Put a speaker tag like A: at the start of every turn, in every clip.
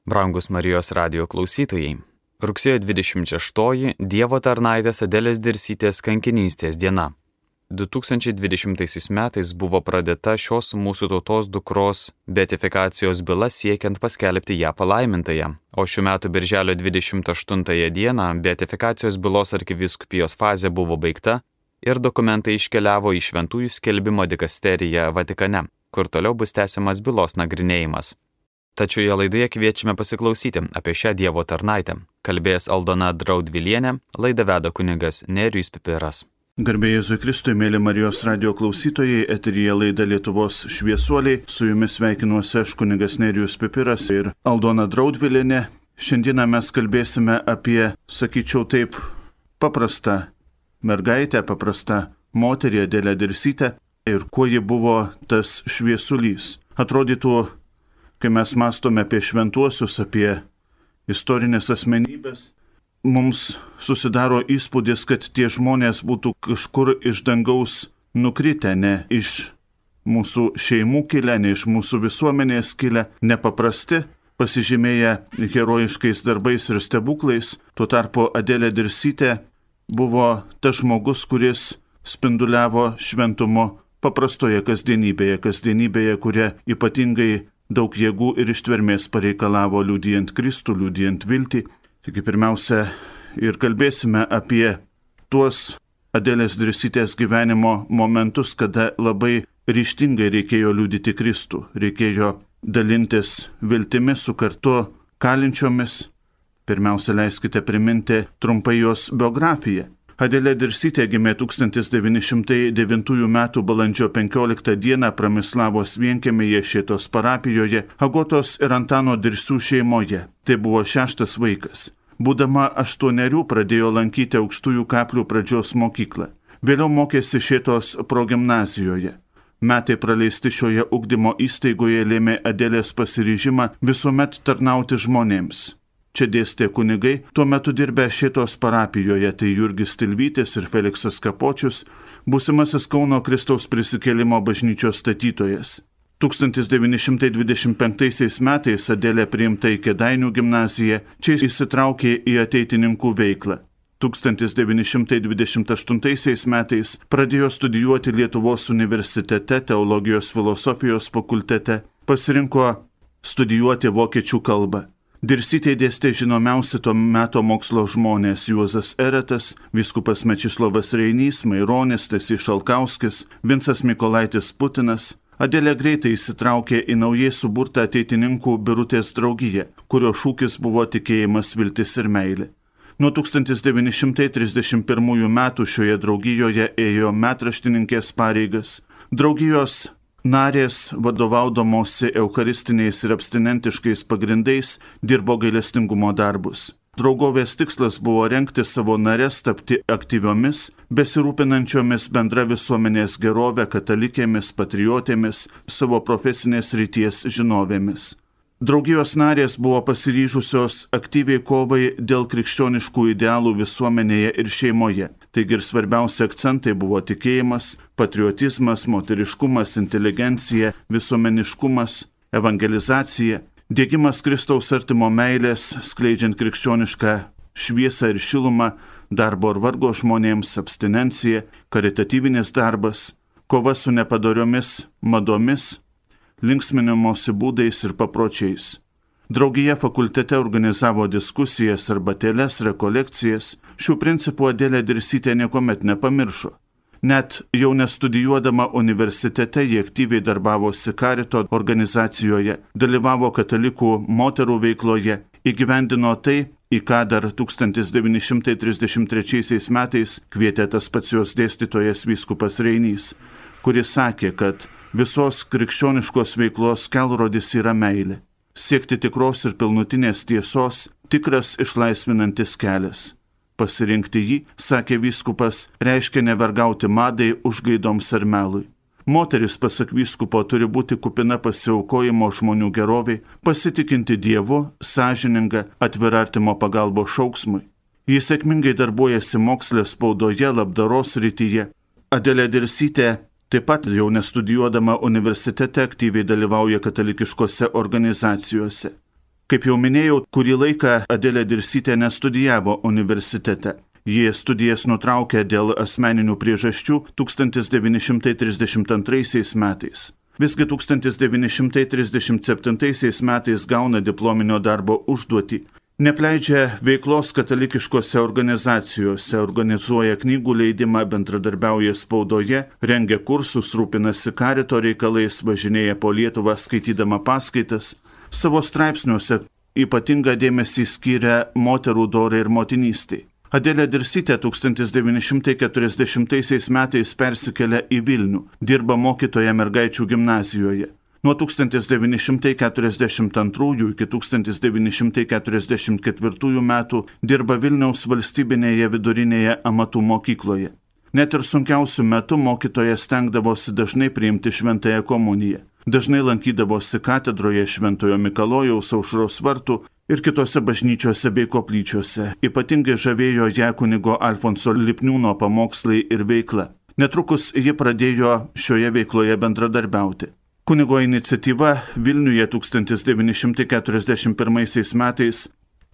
A: Brangus Marijos radijo klausytojai, rugsėjo 26 Dievo tarnaitės Adelės Dirsytės kankinystės diena. 2020 metais buvo pradėta šios mūsų tautos dukros beatifikacijos byla siekiant paskelbti ją palaimintąją, o šių metų birželio 28 dieną beatifikacijos bylos arkivyskupijos fazė buvo baigta ir dokumentai iškeliavo į Šventųjų skelbimo dikasteriją Vatikane, kur toliau bus tęsiamas bylos nagrinėjimas. Tačioje laidoje kviečiame pasiklausyti apie šią Dievo tarnaitę. Kalbės Aldona Draudvilienė, laidą veda kunigas Nerijus Pipiras.
B: Garbė Jėzui Kristui, mėly Marijos radijo klausytojai, eteryje laida Lietuvos šviesuoliai. Su jumis sveikinuosi aš kunigas Nerijus Pipiras ir Aldona Draudvilienė. Šiandieną mes kalbėsime apie, sakyčiau taip, paprastą mergaitę, paprastą moterį Adelę Dirsytę ir kuo ji buvo tas šviesulys. Atrodytų, kai mes mąstome apie šventuosius, apie istorinės asmenybės, mums susidaro įspūdis, kad tie žmonės būtų kažkur iš dangaus nukritę, ne iš mūsų šeimų kilę, ne iš mūsų visuomenės kilę, nepaprasti, pasižymėję herojiškais darbais ir stebuklais. Tuo tarpu Adelė Dirsytė buvo tas žmogus, kuris spinduliavo šventumo paprastoje kasdienybėje, kuria ypatingai daug jėgų ir ištvermės pareikalavo liudijant Kristų, liudijant viltį. Taigi pirmiausia ir kalbėsime apie tuos Adelės Dirsytės gyvenimo momentus, kada labai ryžtingai reikėjo liudyti Kristų, reikėjo dalintis viltimi su kartu kalinčiomis. Pirmiausia, leiskite priminti trumpai jos biografiją. Adelė Dirsytė gimė 1909 m. balandžio 15 d. Pramislavos vienkiemyje Šėtos parapijoje, Agotos ir Antano Dirsių šeimoje. Tai buvo 6 vaikas. Būdama 8 pradėjo lankyti Aukštųjų Kaplių pradžios mokyklą. Vėliau mokėsi Šėtos progimnazijoje. Metai praleisti šioje ugdymo įstaigoje lėmė Adelės pasiryžimą visuomet tarnauti žmonėms. Čia dėstė kunigai, tuo metu dirbę Šėtos parapijoje, tai Jurgis Tilvytis ir Feliksas Kapočius, būsimasis Kauno Kristaus prisikėlimo bažnyčios statytojas. 1925 metais Adelė priimta į Kėdainių gimnaziją, čia įsitraukė į ateitininkų veiklą. 1928 metais pradėjo studijuoti Lietuvos universitete, teologijos filosofijos fakultete, pasirinko studijuoti vokiečių kalbą. Dirsytė dėstė žinomiausi to meto mokslo žmonės Juozas Eretas, vyskupas Mečislovas Reinys, Maironis, Stasys Šalkauskis, Vincas Mykolaitis Putinas. Adelė greitai įsitraukė į naujai suburtą ateitininkų Birutės draugiją, kurio šūkis buvo tikėjimas, viltis ir meilė. Nuo 1931 metų šioje draugijoje ėjo metraštininkės pareigas. Draugijos narės, vadovaudamosi eucharistiniais ir abstinentiškais pagrindais, dirbo gailestingumo darbus. Draugovės tikslas buvo rengti savo nares tapti aktyviomis, besirūpinančiomis bendra visuomenės gerovę, katalikėmis, patriotėmis, savo profesinės ryties žinovėmis. Draugijos narės buvo pasiryžusios aktyviai kovai dėl krikščioniškų idealų visuomenėje ir šeimoje. Taigi ir svarbiausi akcentai buvo tikėjimas, patriotizmas, moteriškumas, inteligencija, visuomeniškumas, evangelizacija, diegimas Kristaus artimo meilės, skleidžiant krikščionišką šviesą ir šilumą, darbo ir vargo žmonėms, abstinencija, karitatyvinis darbas, kova su nepadoriomis madomis, linksminimosi būdais ir papročiais. Draugija fakultete organizavo diskusijas, arbatėles, rekolekcijas. Šių principų Adelė Dirsytė niekuomet nepamiršo. Net jau nestudijuodama universitete ji aktyviai darbavosi Karito organizacijoje, dalyvavo katalikų moterų veikloje, įgyvendino tai, į ką dar 1933 metais kvietė tas pats jos dėstytojas vyskupas Reinys, kuris sakė, kad visos krikščioniškos veiklos kelrodis yra meilė. Siekti tikros ir pilnutinės tiesos, tikras išlaisvinantis kelias. Pasirinkti jį, sakė vyskupas, reiškia nevergauti madai, užgaidoms ar melui. Moteris, pasak vyskupo, turi būti kupina pasiaukojimo žmonių geroviai, pasitikinti Dievu, sąžininga, atvira artimo pagalbos šauksmui. Jis sėkmingai darbuojasi moksle, spaudoje, labdaros srityje. Adelė Dirsytė taip pat jau nestudijuodama universitete aktyviai dalyvauja katalikiškose organizacijose. Kaip jau minėjau, kurį laiką Adelė Dirsytė nestudijavo universitete. Jie studijas nutraukė dėl asmeninių priežasčių 1932 metais. Visgi 1937 metais gauna diplominio darbo užduotį. Nepleidžia veiklos katalikiškose organizacijose, organizuoja knygų leidimą, bendradarbiauja spaudoje, rengia kursus, rūpinasi karito reikalais, važinėja po Lietuvą skaitydama paskaitas. Savo straipsniuose ypatingą dėmesį skiria moterų dorai ir motinystei. Adelė Dirsytė 1940 metais persikelia į Vilnių, dirba mokytoja mergaičių gimnazijoje. Nuo 1942 iki 1944 metų dirba Vilniaus valstybinėje vidurinėje amatų mokykloje. Net ir sunkiausių metų mokytoja stengdavosi dažnai priimti šventąją komuniją. Dažnai lankydavosi katedroje Šventojo Mikalojaus, Aušros vartų ir kitose bažnyčiose bei koplyčiose. Ypatingai žavėjo ją kunigo Alfonso Lipniūno pamokslai ir veikla. Netrukus ji pradėjo šioje veikloje bendradarbiauti. Kunigo iniciatyva Vilniuje 1941 metais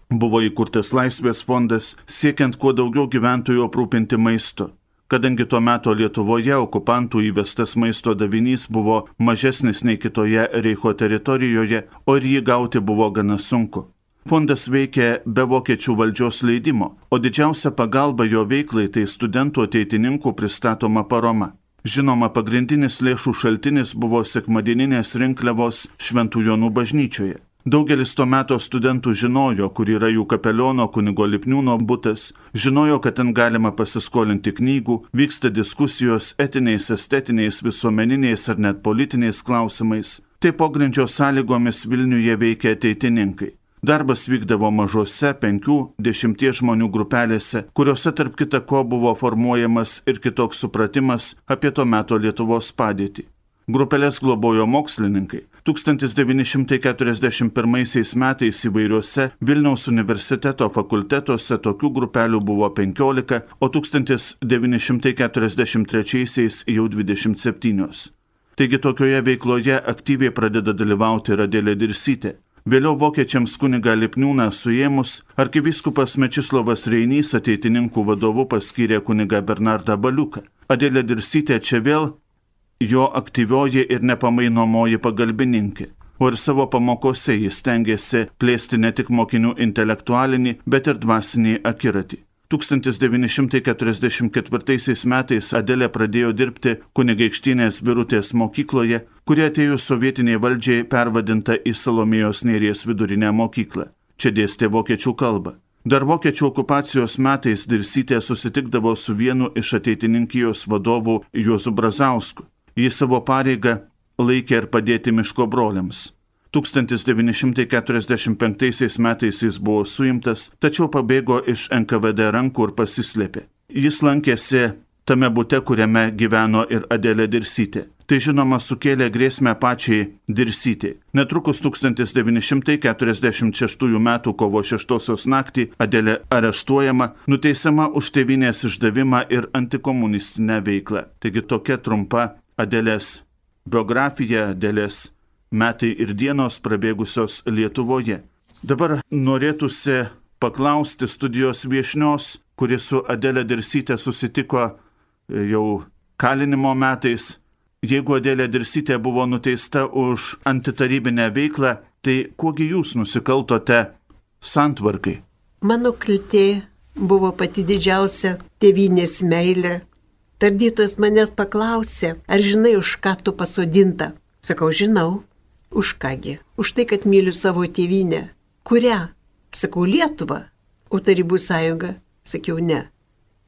B: buvo įkurtas Laisvės fondas, siekiant kuo daugiau gyventojų aprūpinti maistu. Kadangi tuo metu Lietuvoje okupantų įvestas maisto davinys buvo mažesnis nei kitoje Reicho teritorijoje, o ir jį gauti buvo gana sunku. Fondas veikė be vokiečių valdžios leidimo, o didžiausia pagalba jo veiklai tai studentų ateitininkų pristatoma parama. Žinoma, pagrindinis lėšų šaltinis buvo sekmadieninės rinkliavos Šventų Jonų bažnyčioje. Daugelis to meto studentų žinojo, kur yra jų kapeliono kunigo Lipniūno butas, žinojo, kad ten galima pasiskolinti knygų, vyksta diskusijos etiniais, estetiniais, visuomeniniais ar net politiniais klausimais. Tai pogrindžio sąlygomis Vilniuje veikia ateitininkai. Darbas vykdavo mažose 5-10 žmonių grupelėse, kuriuose tarp kita ko buvo formuojamas ir kitoks supratimas apie to meto Lietuvos padėtį. Grupelės globojo mokslininkai. 1941 metais įvairiuose Vilniaus universiteto fakultetuose tokių grupelių buvo 15, o 1943 jau 27. Taigi tokioje veikloje aktyviai pradeda dalyvauti ir Adelė Dirsytė. Vėliau vokiečiams kunigą Lipniūną suėmus, arkivyskupas Mečislovas Reinys ateitininkų vadovu paskyrė kunigą Bernardą Baliuką. Adelė Dirsytė čia vėl jo aktyvioji ir nepamainomoji pagalbininkė, o ir savo pamokose jis stengiasi plėsti ne tik mokinių intelektualinį, bet ir dvasinį akiratį. 1944 metais Adelė pradėjo dirbti Kunigaikštynės Birutės mokykloje, kuri atėjus sovietiniai valdžiai pervadinta į Salomėjos Nėries vidurinę mokyklą. Čia dėstė vokiečių kalbą. Dar vokiečių okupacijos metais Dirsytė susitikdavo su vienu iš ateitininkijos vadovų Juozu Brazausku. Jis savo pareigą laikė ir padėti miško broliams. 1945 metais jis buvo suimtas, tačiau pabėgo iš NKVD rankų ir pasislėpė. Jis lankėsi tame bute, kuriame gyveno ir Adelė Dirsytė. Tai žinoma sukėlė grėsmę pačiai Dirsytei. Netrukus 1946 m. kovo 6 naktį Adelė areštuojama, nuteisiama už tėvynės išdavimą ir antikomunistinę veiklą. Taigi tokia trumpa Adelės biografija, Adelės metai ir dienos prabėgusios Lietuvoje. Dabar norėtųsi paklausti studijos viešnios, kuri su Adelė Dirsytė susitiko jau kalinimo metais. Jeigu Adelė Dirsytė buvo nuteista už antitarybinę veiklą, tai kuogi jūs nusikaltote santvarkai?
C: Mano kaltė buvo pati didžiausia tėvynės meilė. Tardytojas manęs paklausė, ar žinai, už ką tu pasodinta? Sakau, žinau. Už kągi? Už tai, kad myliu savo tėvynę. Kurią? Sakau, Lietuvą. O Tarybų sąjunga? Sakiau, ne.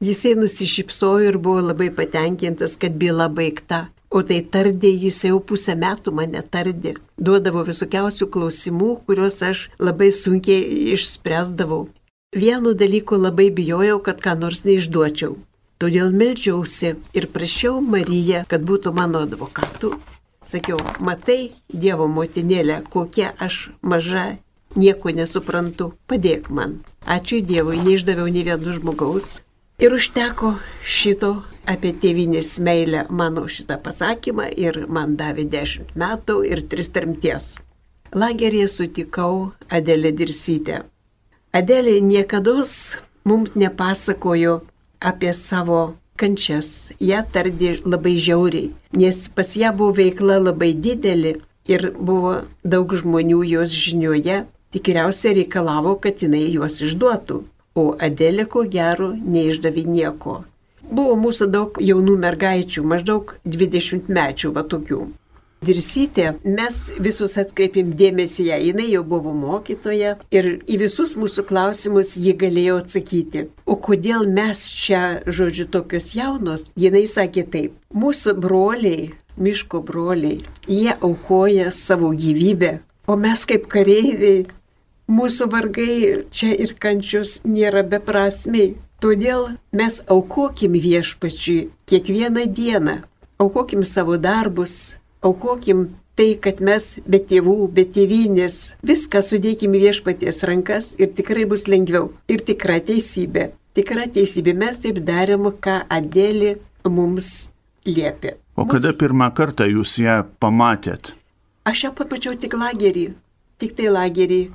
C: Jisai nusišypsojo ir buvo labai patenkintas, kad byla baigta. O tai tardė, jis jau pusę metų mane tardė. Duodavo visokiausių klausimų, kuriuos aš labai sunkiai išspręsdavau. Vienu dalyku labai bijojau, kad ką nors neišduočiau. Todėl meldžiausi ir prašiau Mariją, kad būtų mano advokatu. Sakiau, matai, Dievo motinėlė, kokia aš maža, nieko nesuprantu, padėk man. Ačiū Dievui, neišdaviau nei vieno žmogaus. Ir užteko šito apie tėvynės meilę mano šitą pasakymą ir man davė 10 metų ir 3 tremties. lageryje sutikau Adelę Dirsytę. Adelė niekados mums nepasakojo apie savo kančias. Ją tardė labai žiauriai, nes pas ją buvo veikla labai didelė ir buvo daug žmonių jos žinioje. Tikriausiai reikalavo, kad jinai juos išduotų, o Adelė ko gero neišdavė nieko. Buvo mūsų daug jaunų mergaičių, maždaug 20 mečių va tokių. Dirsytė, mes visus atkreipėm dėmesį ją, jinai jau buvo mokytoja ir į visus mūsų klausimus ji galėjo atsakyti. O kodėl mes čia, žodžiu, tokios jaunos? Jinai sakė taip, mūsų broliai, miško broliai, jie aukoja savo gyvybę, o mes kaip kareiviai, mūsų vargai čia ir kančios nėra beprasmiai. Todėl mes aukokim viešpačiui kiekvieną dieną, aukokim savo darbus, aukokim tai, kad mes be tėvų, be tėvynės, viską sudėkim į viešpaties rankas ir tikrai bus lengviau. Ir tikra teisybė. Tikra teisybė. Mes taip darėm, ką Adelė mums liepė.
B: O kada pirmą kartą jūs ją pamatėt?
C: Aš ją pamačiau tik lagerį. Tik tai lagerį.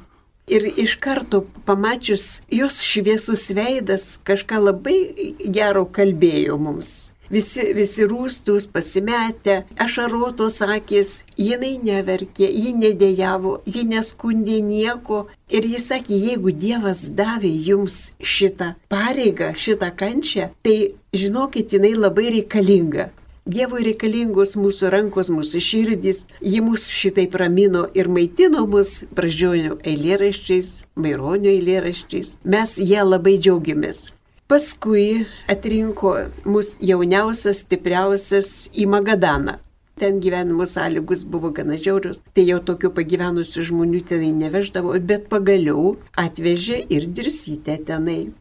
C: Ir iš karto pamačius jos šviesus veidas kažką labai gero kalbėjo mums. Visi rūstus, pasimetę, ašarotos akis, jinai neverkė, ji nedėjavo, ji neskundė nieko. Ir jis sakė, jeigu Dievas davė jums šitą pareigą, šitą kančią, tai žinokit, jinai labai reikalinga. Dievui reikalingos mūsų rankos, mūsų širdys, ji mus šitai ramino ir maitino mus Brazdžionio eilėraščiais, Maironio eilėraščiais. Mes ją labai džiaugiamės. Paskui atrinko mus jauniausias, stipriausias į Magadaną. Ten gyvenimo sąlygos buvo gana žiaurios, tai jau tokių pagyvenusių žmonių tenai neveždavo, bet pagaliau atvežė ir Dirsytę tenai.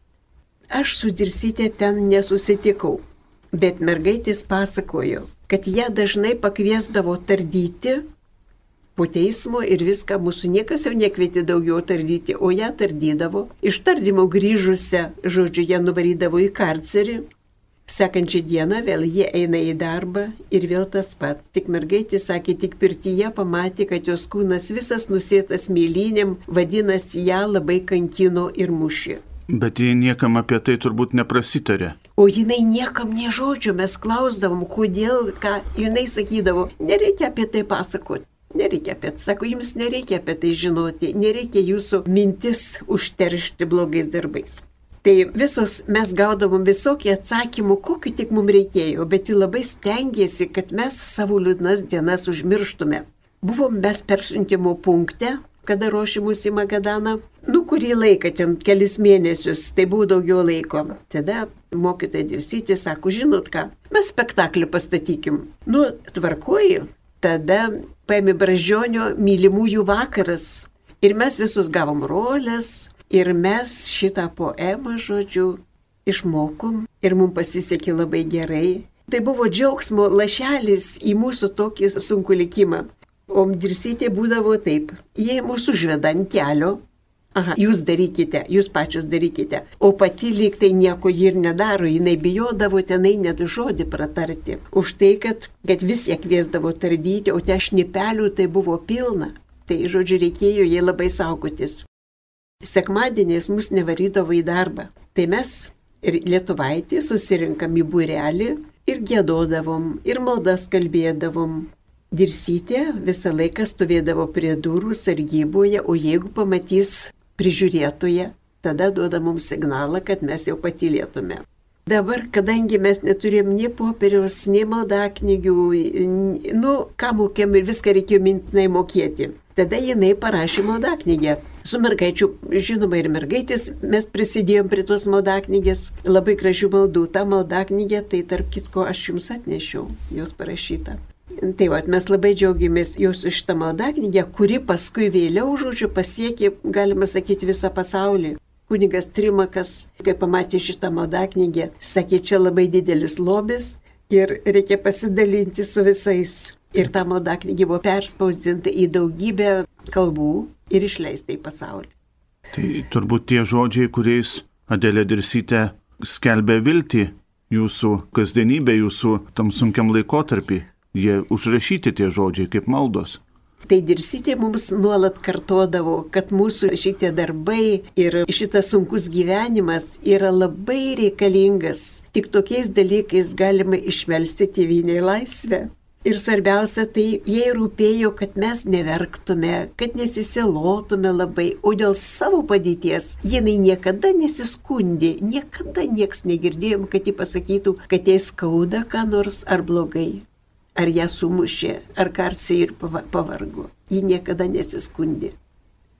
C: Aš su Dirsytė ten nesusitikau. Bet mergaitės pasakojo, kad ją dažnai pakviesdavo tardyti po teismo ir viską, mūsų niekas jau nekvietė daugiau tardyti, o ją tardydavo. Iš tardymo grįžusią, žodžiu, ją nuvarydavo į karcerį. Sekančią dieną vėl jie eina į darbą ir vėl tas pats. Tik mergaitė sakė, tik pirtyje pamatė, kad jos kūnas visas nusėtas mėlynėm, vadinasi, ją labai kankino ir mušė.
B: Bet jie niekam apie tai turbūt neprasitarė.
C: O jinai niekam nė žodžio, mes klausdavom, kodėl, ką jinai sakydavo, nereikia apie tai pasakoti, nereikia apie tai, sako, jums nereikia apie tai žinoti, nereikia jūsų mintis užteršti blogais darbais. Tai visos mes gaudavom visokį atsakymų, kokiu tik mums reikėjo, bet ji labai stengiasi, kad mes savo liūdnas dienas užmirštume. Buvom mes persiuntimo punkte, kada ruošimus į Magadaną, kurį laiką, ten kelis mėnesius, tai buvo daugiau laiko. Tada mokytoja Dirsytė sako, žinot ką, mes spektaklį pastatykim. Tvarkoji, tada paėmė Brazdžionio mylimųjų vakaras ir mes visus gavom rolės ir mes šitą poemą, žodžiu, išmokom ir mums pasisekė labai gerai. Tai buvo džiaugsmo lašelis į mūsų tokį sunkų likimą. O Dirsytė būdavo taip, jie mūsų užveda ant kelio, jūs darykite, jūs pačius darykite, o pati lyg tai nieko ji ir nedaro, jinai bijodavo tenai net žodį pratarti. Už tai, kad vis ją kviesdavo tardyti, o te šnipelių tai buvo pilna, tai žodžiu reikėjo jai labai saugotis. Sekmadieniais mus nevarydavo į darbą, tai mes ir lietuvaitį susirinkam į būrelį ir giedodavom, ir maldas kalbėdavom. Dirsytė visą laiką stovėdavo prie durų sargyboje, o jeigu pamatys prižiūrėtoje, tada duoda mums signalą, kad mes jau patylėtume. Dabar, kadangi mes neturėjom nei popieriaus, nei maldaknygių, ką mokėm ir viską reikėjo mintinai mokėti, tada jinai parašė maldaknygę. Su mergaičių, žinoma, ir mergaitės mes prisidėjom prie tos maldaknygės, labai gražių maldų. Ta maldaknygė, tai tarp kitko aš jums atnešiau, jos parašyta. Tai mes labai džiaugiamės jos iš tą maldaknygę, kuri paskui vėliau, žodžiu, pasiekė, galima sakyti, visą pasaulį. Kunigas Trimakas, kai pamatė šitą maldaknygę, sakė, čia labai didelis lobis ir reikia pasidalinti su visais. Ir ta maldaknygė buvo perspausdinta į daugybę kalbų ir išleista į pasaulį.
B: Tai turbūt tie žodžiai, kuriais Adelė Dirsytė skelbė viltį jūsų kasdienybė, jūsų tam sunkiam laikotarpį. Jie užrašyti tie žodžiai kaip maldos.
C: Tai Dirsytė mums nuolat kartodavo, kad mūsų šitie darbai ir šitas sunkus gyvenimas yra labai reikalingas. Tik tokiais dalykais galima išmelsti tėvynei laisvę. Ir svarbiausia, tai jai rūpėjo, kad mes neverktume, kad nesisilotume labai, o dėl savo padėties jinai niekada nesiskundė, niekada nieks negirdėjom, kad ji pasakytų, kad jai skauda ką nors ar blogai. Ar ją sumušė, ar karsiai ir pavargo. Ji niekada nesiskundė.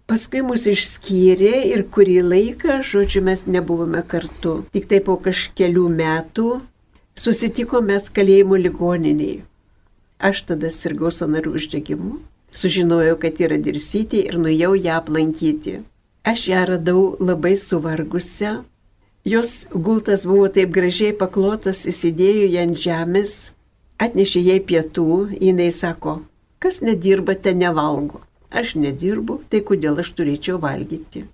C: Paskui mus išskyrė ir kurį laiką, žodžiu, mes nebuvome kartu. Tik tai po kažkelių metų susitikome kalėjimo ligoninėje. Aš tada sirgau sąnarių uždegimu. Sužinojau, kad yra Dirsytė ir nuėjau ją aplankyti. Aš ją radau labai suvargusią. Jos gultas buvo taip gražiai paklotas, įsidėjo ją ant žemės. Atnešė jai pietų, jinai sako, kas nedirba, te nevalgo. Aš nedirbu, tai kodėl aš turėčiau valgyti.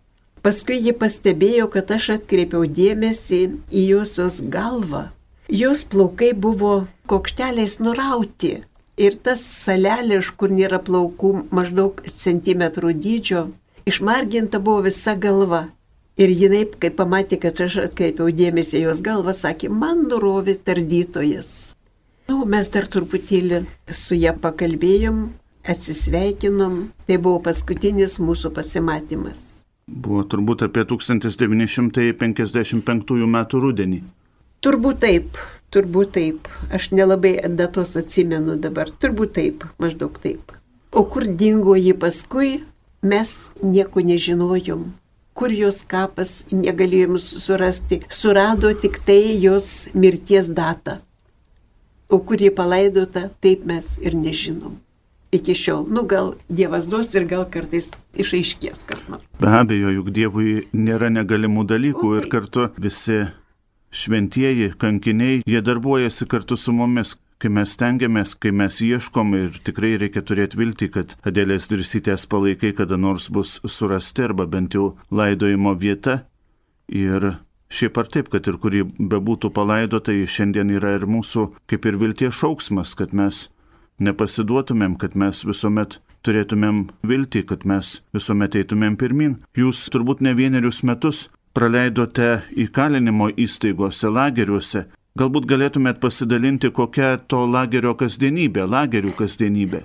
C: Paskui ji pastebėjo, kad aš atkreipiau dėmesį į josios galvą. Jos plaukai buvo kokšteliais nurauti ir tas salelė, iš kur nėra plaukų, maždaug centimetrų dydžio, išmarginta buvo visa galva. Ir jinai, kai pamatė, kad aš atkreipiau dėmesį į jos galvą, sakė, man nurovė tardytojas. Mes dar truputėlį su ją pakalbėjom, atsisveikinom, tai buvo paskutinis mūsų pasimatymas.
B: Buvo turbūt apie 1955 metų rudenį.
C: Turbūt taip. Aš nelabai datos atsimenu dabar, turbūt taip, maždaug taip. O kur dingo ji paskui, mes nieko nežinojom. Kur jos kapas, negalėjom surasti. Surado tik tai jos mirties datą. O kur jį palaidota, taip mes ir nežinom. Iki šiol, gal Dievas duos ir gal kartais išaiškės kas nors.
B: Be abejo, juk Dievui nėra negalimų dalykų ir kartu visi šventieji, kankiniai, jie darbuojasi kartu su mumis, kai mes stengiamės, kai mes ieškom ir tikrai reikia turėti viltį, kad Adelės Dirsytės palaikai kada nors bus surasti arba bent jau laidojimo vieta. Ir šiaip ar taip, kad ir kurį bebūtų palaidota, šiandien yra ir mūsų kaip ir vilties šauksmas, kad mes nepasiduotumėm, kad mes visuomet turėtumėm viltį, kad mes visuomet eitumėm pirmin. Jūs turbūt ne vienerius metus praleidote įkalinimo įstaigose, lageriuose. Galbūt galėtumėt pasidalinti, kokia to lagerio kasdienybė, lagerių kasdienybė.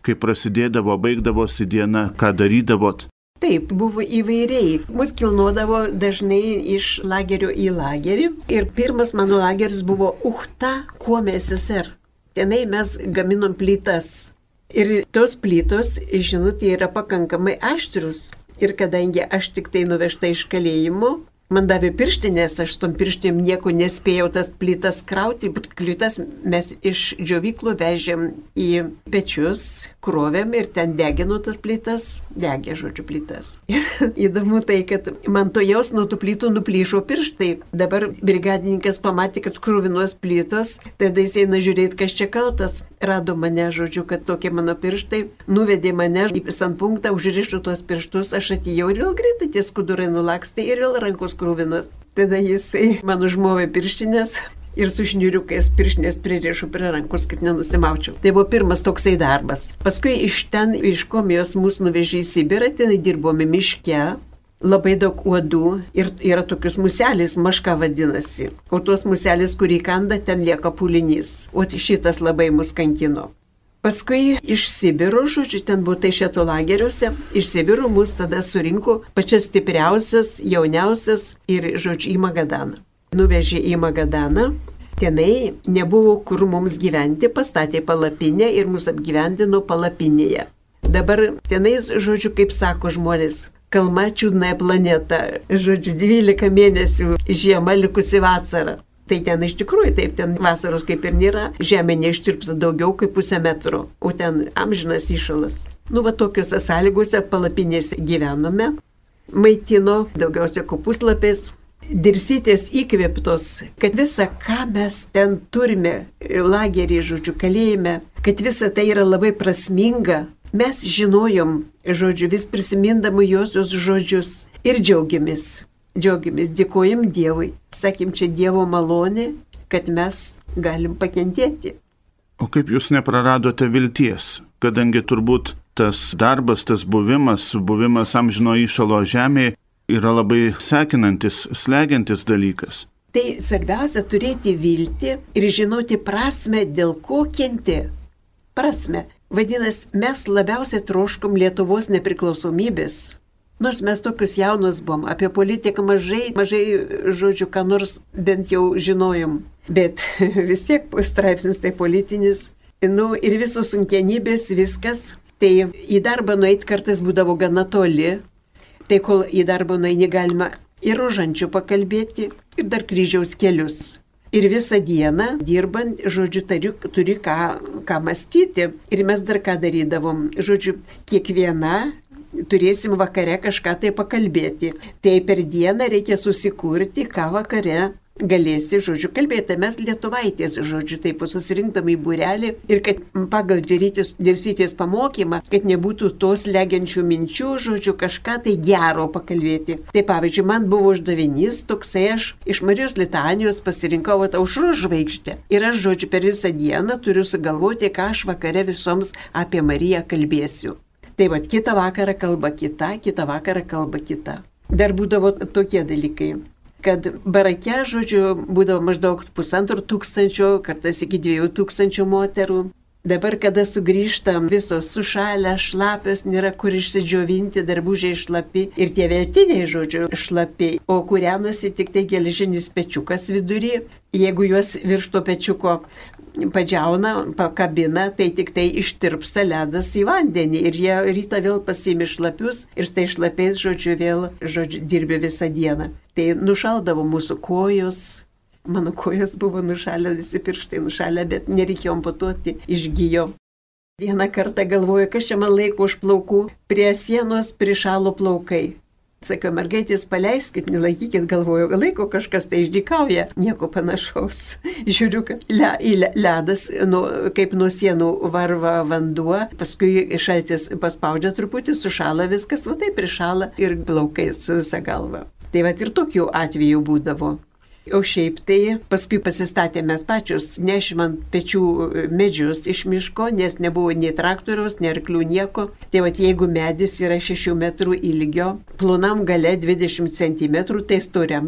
B: Kaip prasidėdavo, baigdavosi diena, ką darydavot.
C: Taip, buvo įvairiai. Mus kilnodavo dažnai iš lagerio į lagerį. Ir pirmas mano lageris buvo Uchta, Kuome SSR. Tenai mes gaminom plytas. Ir tos plytos, žinot, yra pakankamai aštrus. Ir kadangi aš tik tai nuvežta iš kalėjimo, man davė pirštinės, aš tom pirštinėm nieko nespėjau tas plytas krauti. Plytas mes iš džiovyklų vežėm į pečius, krovėm ir ten degino tas plytas, degė, žodžiu, plytas. Ir įdomu tai, kad man to jaus nuo tų plytų nuplyšo pirštai. Dabar brigadininkas pamatė, kad skruvinos plytos, tada jis eina žiūrėti, kas čia kaltas. Rado mane, žodžiu, kad tokie mano pirštai, nuvedė mane į sanpunktą, užrišo tuos pirštus, aš atėjau ir vėl greitai tie skudurai nulakstė ir vėl rankos krūvinos. Tada jisai man užmovė pirštinės ir su šniuriukais pirštinės pririšo prie rankos, kad nenusimaučiau. Tai buvo pirmas toksai darbas. Paskui iš ten, iš Komijos mus nuvežė į Sibirą, ten dirbome miške, labai daug uodų ir yra tokius muselis, maška vadinasi. O tuos muselis, kurį kanda, ten lieka pūlinys. O šitas labai mus kankino. Paskui iš Sibiro, žodžiu, ten buvo Taišeto lageriuose, iš Sibiro mus tada surinko pačias stipriausias, jauniausias ir, žodžiu, į Magadaną. Nuvežė į Magadaną, tenai nebuvo kur mums gyventi, pastatė palapinę ir mus apgyvendino palapinėje. Dabar tenais, žodžiu, kaip sako žmonės, kalma čiūdnąją planetą, žodžiu, 12 mėnesių žiema likusi vasara. Tai ten iš tikrųjų taip, ten vasaros kaip ir nėra, žemė neištirpsta daugiau kaip 0,5 metro, o ten amžinas įšalas. Tokiuose sąlygose palapinėse gyvenome, maitino daugiausia kopūstlapiais. Dirsytės įkvėptos, kad visa, ką mes ten turime, lagerį, žodžiu, kalėjime, kad visa tai yra labai prasminga, mes žinojom, žodžiu, vis prisimindami josios žodžius ir džiaugiamės. Džiaugiamės, dėkojam Dievui. Sakym, čia Dievo malonė, kad mes galim pakentėti.
B: O kaip jūs nepraradote vilties, kadangi turbūt tas darbas, tas buvimas amžino įšalo žemėje yra labai sekinantis, slegiantis dalykas.
C: Tai svarbiausia turėti viltį ir žinoti prasme, dėl ko kenti. Prasme. Vadinasi, mes labiausiai troškom Lietuvos nepriklausomybės. Nors mes tokius jaunus buvom, apie politiką mažai, žodžiu, ką nors bent jau žinojom. Bet vis tiek straipsnis tai politinis. Ir visos sunkienybės, viskas. Tai į darbą nueiti kartais būdavo gana toli. Tai kol į darbą nueini galima ir rožančių pakalbėti, ir dar kryžiaus kelius. Ir visą dieną dirbant, žodžiu, turi ką mąstyti. Ir mes dar ką darydavom. Žodžiu, kiekviena turėsim vakare kažką tai pakalbėti. Tai per dieną reikia susikurti, ką vakare galėsi, žodžiu, kalbėti. Mes lietuvaitės, žodžiu, taip susirinktam į būrelį ir kad pagal Dievytės pamokymą, kad nebūtų tos legiančių minčių, žodžiu, kažką tai gero pakalbėti. Tai pavyzdžiui, man buvo uždavinys toksai, aš iš Marijos litanijos pasirinkau aušros žvaigždę. Ir aš, žodžiu, per visą dieną turiu sugalvoti, ką aš vakare visoms apie Mariją kalbėsiu. Tai va, kitą vakarą kalba kita, kitą vakarą kalba kita. Dar būdavo tokie dalykai. Kad barake, žodžiu, būdavo maždaug 1500, kartais iki 2000 moterų. Dabar, kada sugrįžtam, visos sušalę, šlapios, nėra kur išsidžiovinti, darbužiai šlapi ir tie veltiniai, žodžiu, šlapi, o kūrenasi tik tai geležinis pečiukas vidury. Jeigu juos virš to pečiuko padžiauna, pakabina, tai tik tai ištirpsta ledas į vandenį ir jie rytą vėl pasiimi šlapius ir štai šlapiais, žodžiu, vėl, žodžiu, dirbi visą dieną. Tai nušaldavo mūsų kojos, mano kojos buvo nušalę, visi pirštai nušalę, bet nereikėjo amputuoti, išgijo. Vieną kartą galvoju, kas čia man laiko už plaukų, prie sienos prišalo plaukai. Sakau, mergaitės, paleiskit, nelaikykit, galvoju, laiko kažkas tai išdykauja, nieko panašaus. Žiūriu, kad ledas, kaip nuo sienų varva vanduo, paskui šaltis paspaudžia truputį, sušala viskas, va taip prišala ir plaukais visą galvą. Tai va ir tokių atvejų būdavo. O šiaip tai paskui pasistatėme pačius, nešim ant pečių medžius iš miško, nes nebuvo nei traktoriaus, nei arklių, nieko. Tai va, jeigu medis yra 6 metrų ilgio, plonam gale 20 cm, tai storam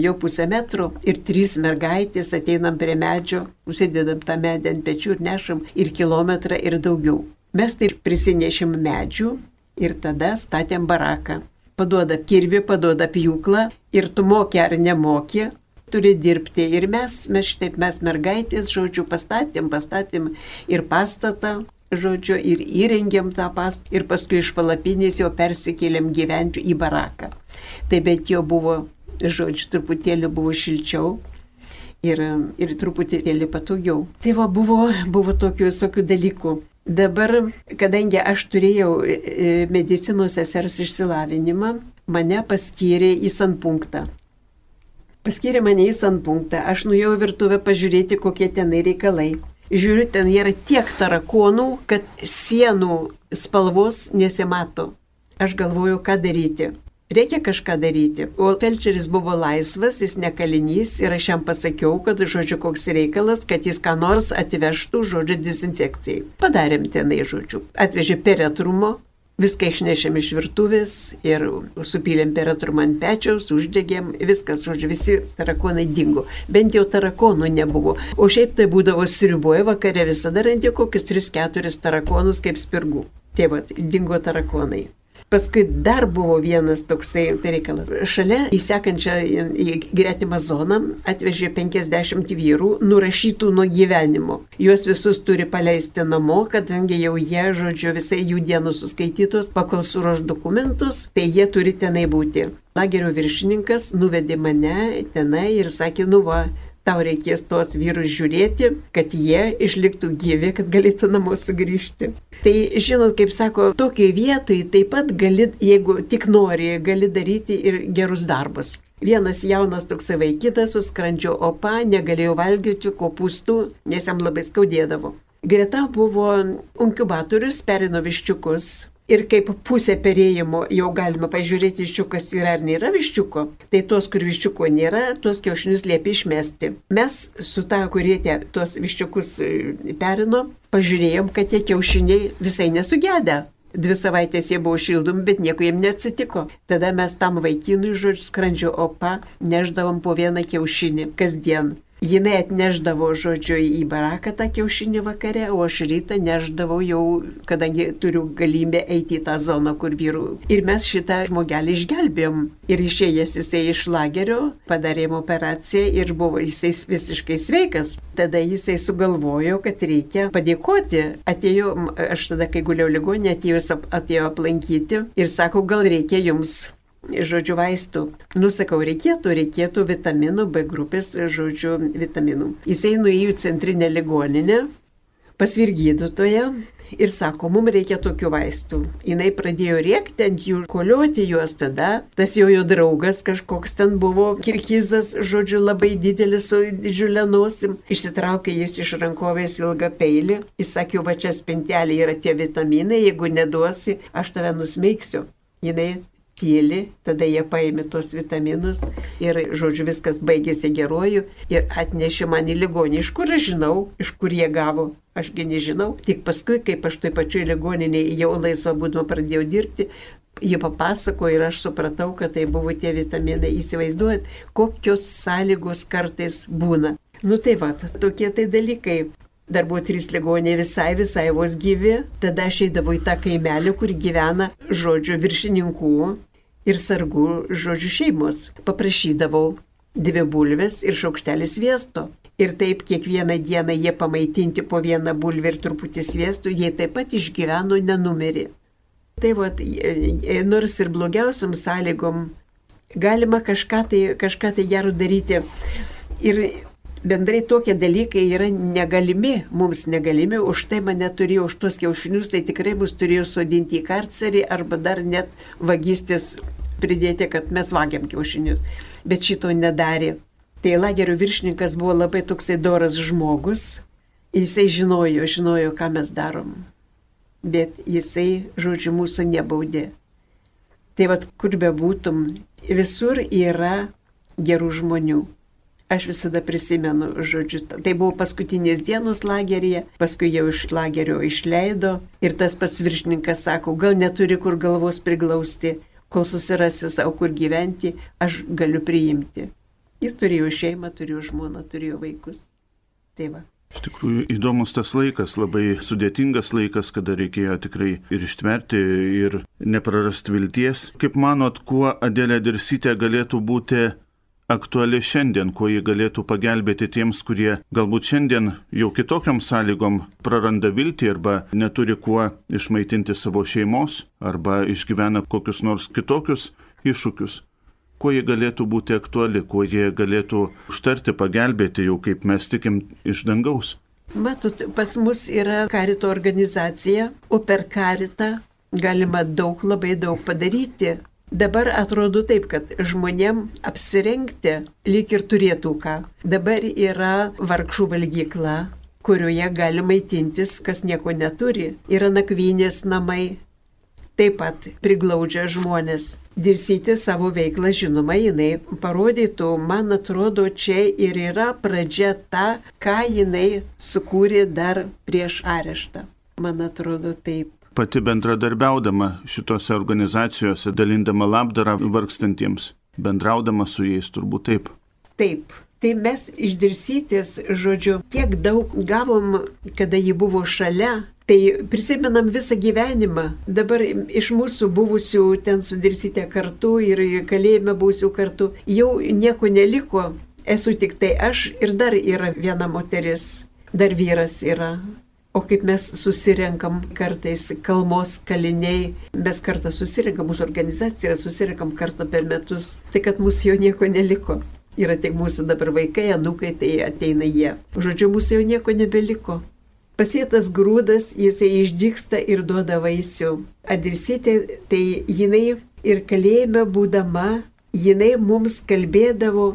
C: jau pusę metro. Ir 3 mergaitės ateinam prie medžio, užsidedam tą medį ant pečių ir nešam ir kilometrą ir daugiau. Mes tai prisinešim medžių ir tada statėm baraką. Paduoda kirvį, paduoda pjūklą ir tu moki ar nemoki, turi dirbti. Ir mes mergaitės, žodžiu, pastatėm ir pastatą, žodžiu, ir įrengėm tą pastatą ir paskui iš palapinės jau persikėlėm gyventi į baraką. Tai bet jau buvo, žodžiu, truputėlį buvo šilčiau ir truputėlį patogiau. Tai va, buvo tokių visokių dalykų. Dabar, kadangi aš turėjau medicinos sesers išsilavinimą, mane paskyrė į sanpunktą. Paskyrė mane į sanpunktą. Aš nuėjau virtuvę pažiūrėti, kokie tenai reikalai. Žiūriu, ten yra tiek tarakonų, kad sienų spalvos nesimato. Aš galvoju, ką daryti. Reikia kažką daryti. O felčeris buvo laisvas, jis ne kalinys ir aš jam pasakiau, kad, žodžiu, koks reikalas, kad jis ką nors atvežtų, žodžiu, dezinfekcijai. Padarėm tenai, žodžiu. Atvežė peretrumo, viską išnešėm iš virtuvės ir supylėm peretrumą ant pečiaus, uždegėm, viskas, žodžiu, visi tarakonai dingo. Bent jau tarakonų nebuvo. O šiaip tai būdavo sriuboje vakare visada randi kokius 3-4 tarakonus kaip spirgų. Tai va, dingo tarakonai. Paskui dar buvo vienas toksai reikalas. Šalia į sekančią į gretimą zoną atvežė 50 vyrų nurašytų nuo gyvenimo. Juos visus turi paleisti namo, kadangi jau jie, žodžiu, visai jų dienų suskaitytos, pakol suruoš dokumentus, tai jie turi tenai būti. Lagerio viršininkas nuvedė mane tenai ir sakė, nu va, tau reikės tuos vyrus žiūrėti, kad jie išliktų gyvi, kad galėtų namo sugrįžti. Tai, žinot, kaip sako, tokiai vietoj taip pat gali, jeigu tik nori, gali daryti ir gerus darbus. Vienas jaunas toksai vaikitas su skrandžio opa negalėjo valgyti kopūstų, nes jam labai skaudėdavo. Greta buvo inkubatorius, perino viščiukus. Ir kaip pusė perėjimo jau galima pažiūrėti, viščiukas yra ar nėra viščiuko, tai tos, kur viščiuko nėra, tuos kiaušinius liepia išmesti. Mes su ta, kurie tuos viščiukus perino, pažiūrėjom, kad tie kiaušiniai visai nesugedę. 2 savaitės jie buvo šildomi, bet nieko jiem neatsitiko. Tada mes tam vaikinui, žodžiu, skrandžio opa neždavom po 1 kiaušinį kasdien. Jinai atneždavo, žodžiu, į baraką tą kiaušinį vakare, o aš rytą neždavau jau, kadangi turiu galimybę eiti į tą zoną, kur vyrų. Ir mes šitą žmogelį išgelbėjom. Ir išėjęs jisai iš lagerio, padarėm operaciją ir buvo jisai visiškai sveikas. Tada jisai sugalvojo, kad reikia padėkoti. Atėjo, aš tada, kai guliau ligoninėje, atėjo aplankyti ir sako, gal reikia jums, žodžiu, vaistų. Nusakau, reikėtų vitaminų, B grupės, žodžiu, vitaminų. Jisai nuėjo į centrinę ligoninę, pas vyrgydytoją ir sako, mums reikia tokių vaistų. Jinai pradėjo rėkti ant jų, kolioti juos tada. Tas jo draugas kažkoks ten buvo, kirgizas, žodžiu, labai didelis su didžiulė nosim. Išsitraukė jis iš rankovės ilgą peilį. Jis sakė, va čia spintelė yra tie vitaminai, jeigu neduosi, aš tave nusmeigsiu. Jinai tyli, tada jie paėmė tos vitaminus ir, žodžiu, viskas baigėsi geruoju ir atnešė man į ligonį. Iš kur aš žinau, iš kur jie gavo? Ašgi nežinau. Tik paskui, kaip aš toj pačioj ligoninėje jau laisvą būdama pradėjau dirbti, jie papasakojo ir aš supratau, kad tai buvo tie vitaminai. Įsivaizduojat, kokios sąlygos kartais būna. Nu tai va, tokie tai dalykai. Dar buvo 3 ligoniai visai vos gyvi. Tada aš eidavau į tą kaimelį, kur gyvena, žodžiu, viršininkų ir sargų, žodžiu, šeimos. Paprašydavau 2 bulves ir šaukštelį sviesto. Ir taip kiekvieną dieną jie pamaitinti po 1 bulvę ir truputį sviesto, jie taip pat išgyveno, nenumirė. Tai va, nors ir blogiausiam sąlygom galima kažką tai gero daryti. Ir bendrai tokie dalykai yra negalimi, mums negalimi, už tai mane turėjo, už tuos kiaušinius, tai tikrai mus turėjo sodinti į karcerį arba dar net vagystės pridėti, kad mes vagiam kiaušinius. Bet šito nedarė. Tai lagerio viršininkas buvo labai toksai doras žmogus, jisai žinojo, ką mes darom. Bet jisai, žodžiu, mūsų nebaudė. Tai vad, kur bebūtum, visur yra gerų žmonių. Aš visada prisimenu, žodžiu, tai buvo paskutinės dienos lageryje, paskui jau iš lagerio išleido ir tas pats viršininkas sako, gal neturi kur galvos priglausti, kol susirasi savo kur gyventi, aš galiu priimti. Jis turėjo šeimą, turėjo žmoną, turėjo vaikus. Tai va.
B: Iš tikrųjų įdomus tas laikas, labai sudėtingas laikas, kada reikėjo tikrai ir ištverti, ir neprarasti vilties. Kaip manot, kuo Adelė Dirsytė galėtų būti aktuali šiandien, kuo ji galėtų pagelbėti tiems, kurie galbūt šiandien jau kitokiam sąlygom praranda viltį arba neturi kuo išmaitinti savo šeimos arba išgyvena kokius nors kitokius iššūkius. Kuo ji galėtų būti aktuali, kuo ji galėtų užtarti, pagelbėti jau kaip mes tikim iš dangaus.
C: Matot, pas mus yra karito organizacija, o per karitą galima labai daug padaryti. Dabar atrodo taip, kad žmonėm apsirengti lyg ir turėtų ką. Dabar yra vargšų valgykla, kurioje gali maitintis, kas nieko neturi. Yra nakvynės namai, taip pat priglaudžia žmonės. Dirsytė savo veiklą, žinoma, jinai parodytų, man atrodo, čia ir yra pradžia ta, ką jinai sukūrė dar prieš areštą. Man atrodo taip.
B: Pati bendradarbiaudama šitose organizacijose, dalindama labdarą vargstantiems, bendraudama su jais, turbūt taip.
C: Taip. Tai mes iš Dirsytės, žodžiu, tiek daug gavom, kada ji buvo šalia, tai prisimenam visą gyvenimą. Dabar iš mūsų buvusių ten su Dirsytė kartu ir kalėjime buvusių kartu jau nieko neliko. Esu tik tai aš ir dar yra viena moteris, dar vyras yra. O kaip mes susirenkam kartais kalmos kaliniai, mes kartą susirenkam, mūsų organizacija yra susirenkam kartą per metus, tai kad mūsų jau nieko neliko. Yra tik mūsų dabar vaikai, anūkai, tai ateina jie. Žodžiu, mūsų jau nieko nebeliko. Pasėtas grūdas, jisai išdygsta ir duoda vaisių. Dirsytė, tai jinai ir kalėjime būdama, jinai mums kalbėdavo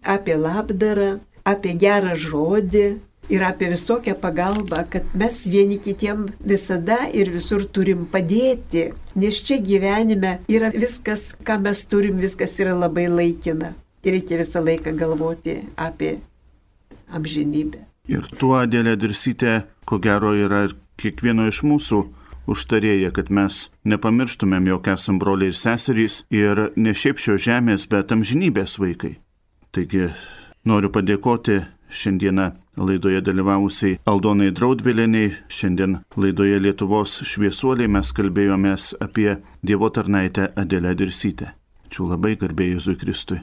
C: apie labdarą, apie gerą žodį. ir apie visokią pagalbą, kad mes vieni kitiem visada ir visur turim padėti, nes čia gyvenime yra viskas, ką mes turim, viskas yra labai laikina. Ir reikia visą laiką galvoti apie amžinybę.
B: Ir tuo Adelė Dirsytė, ko gero, yra kiekvieno iš mūsų užtarėja, kad mes nepamirštumėm, jog esam broliai ir seserys ir ne šiaip šios žemės, bet amžinybės vaikai. Taigi noriu padėkoti šiandieną laidoje dalyvavusiai Aldonai Draudvilienei. Šiandien laidoje Lietuvos šviesuoliai mes kalbėjomės apie Dievo tarnaitę Adelę Dirsytę. Ačiū labai, garbė Jėzui Kristui.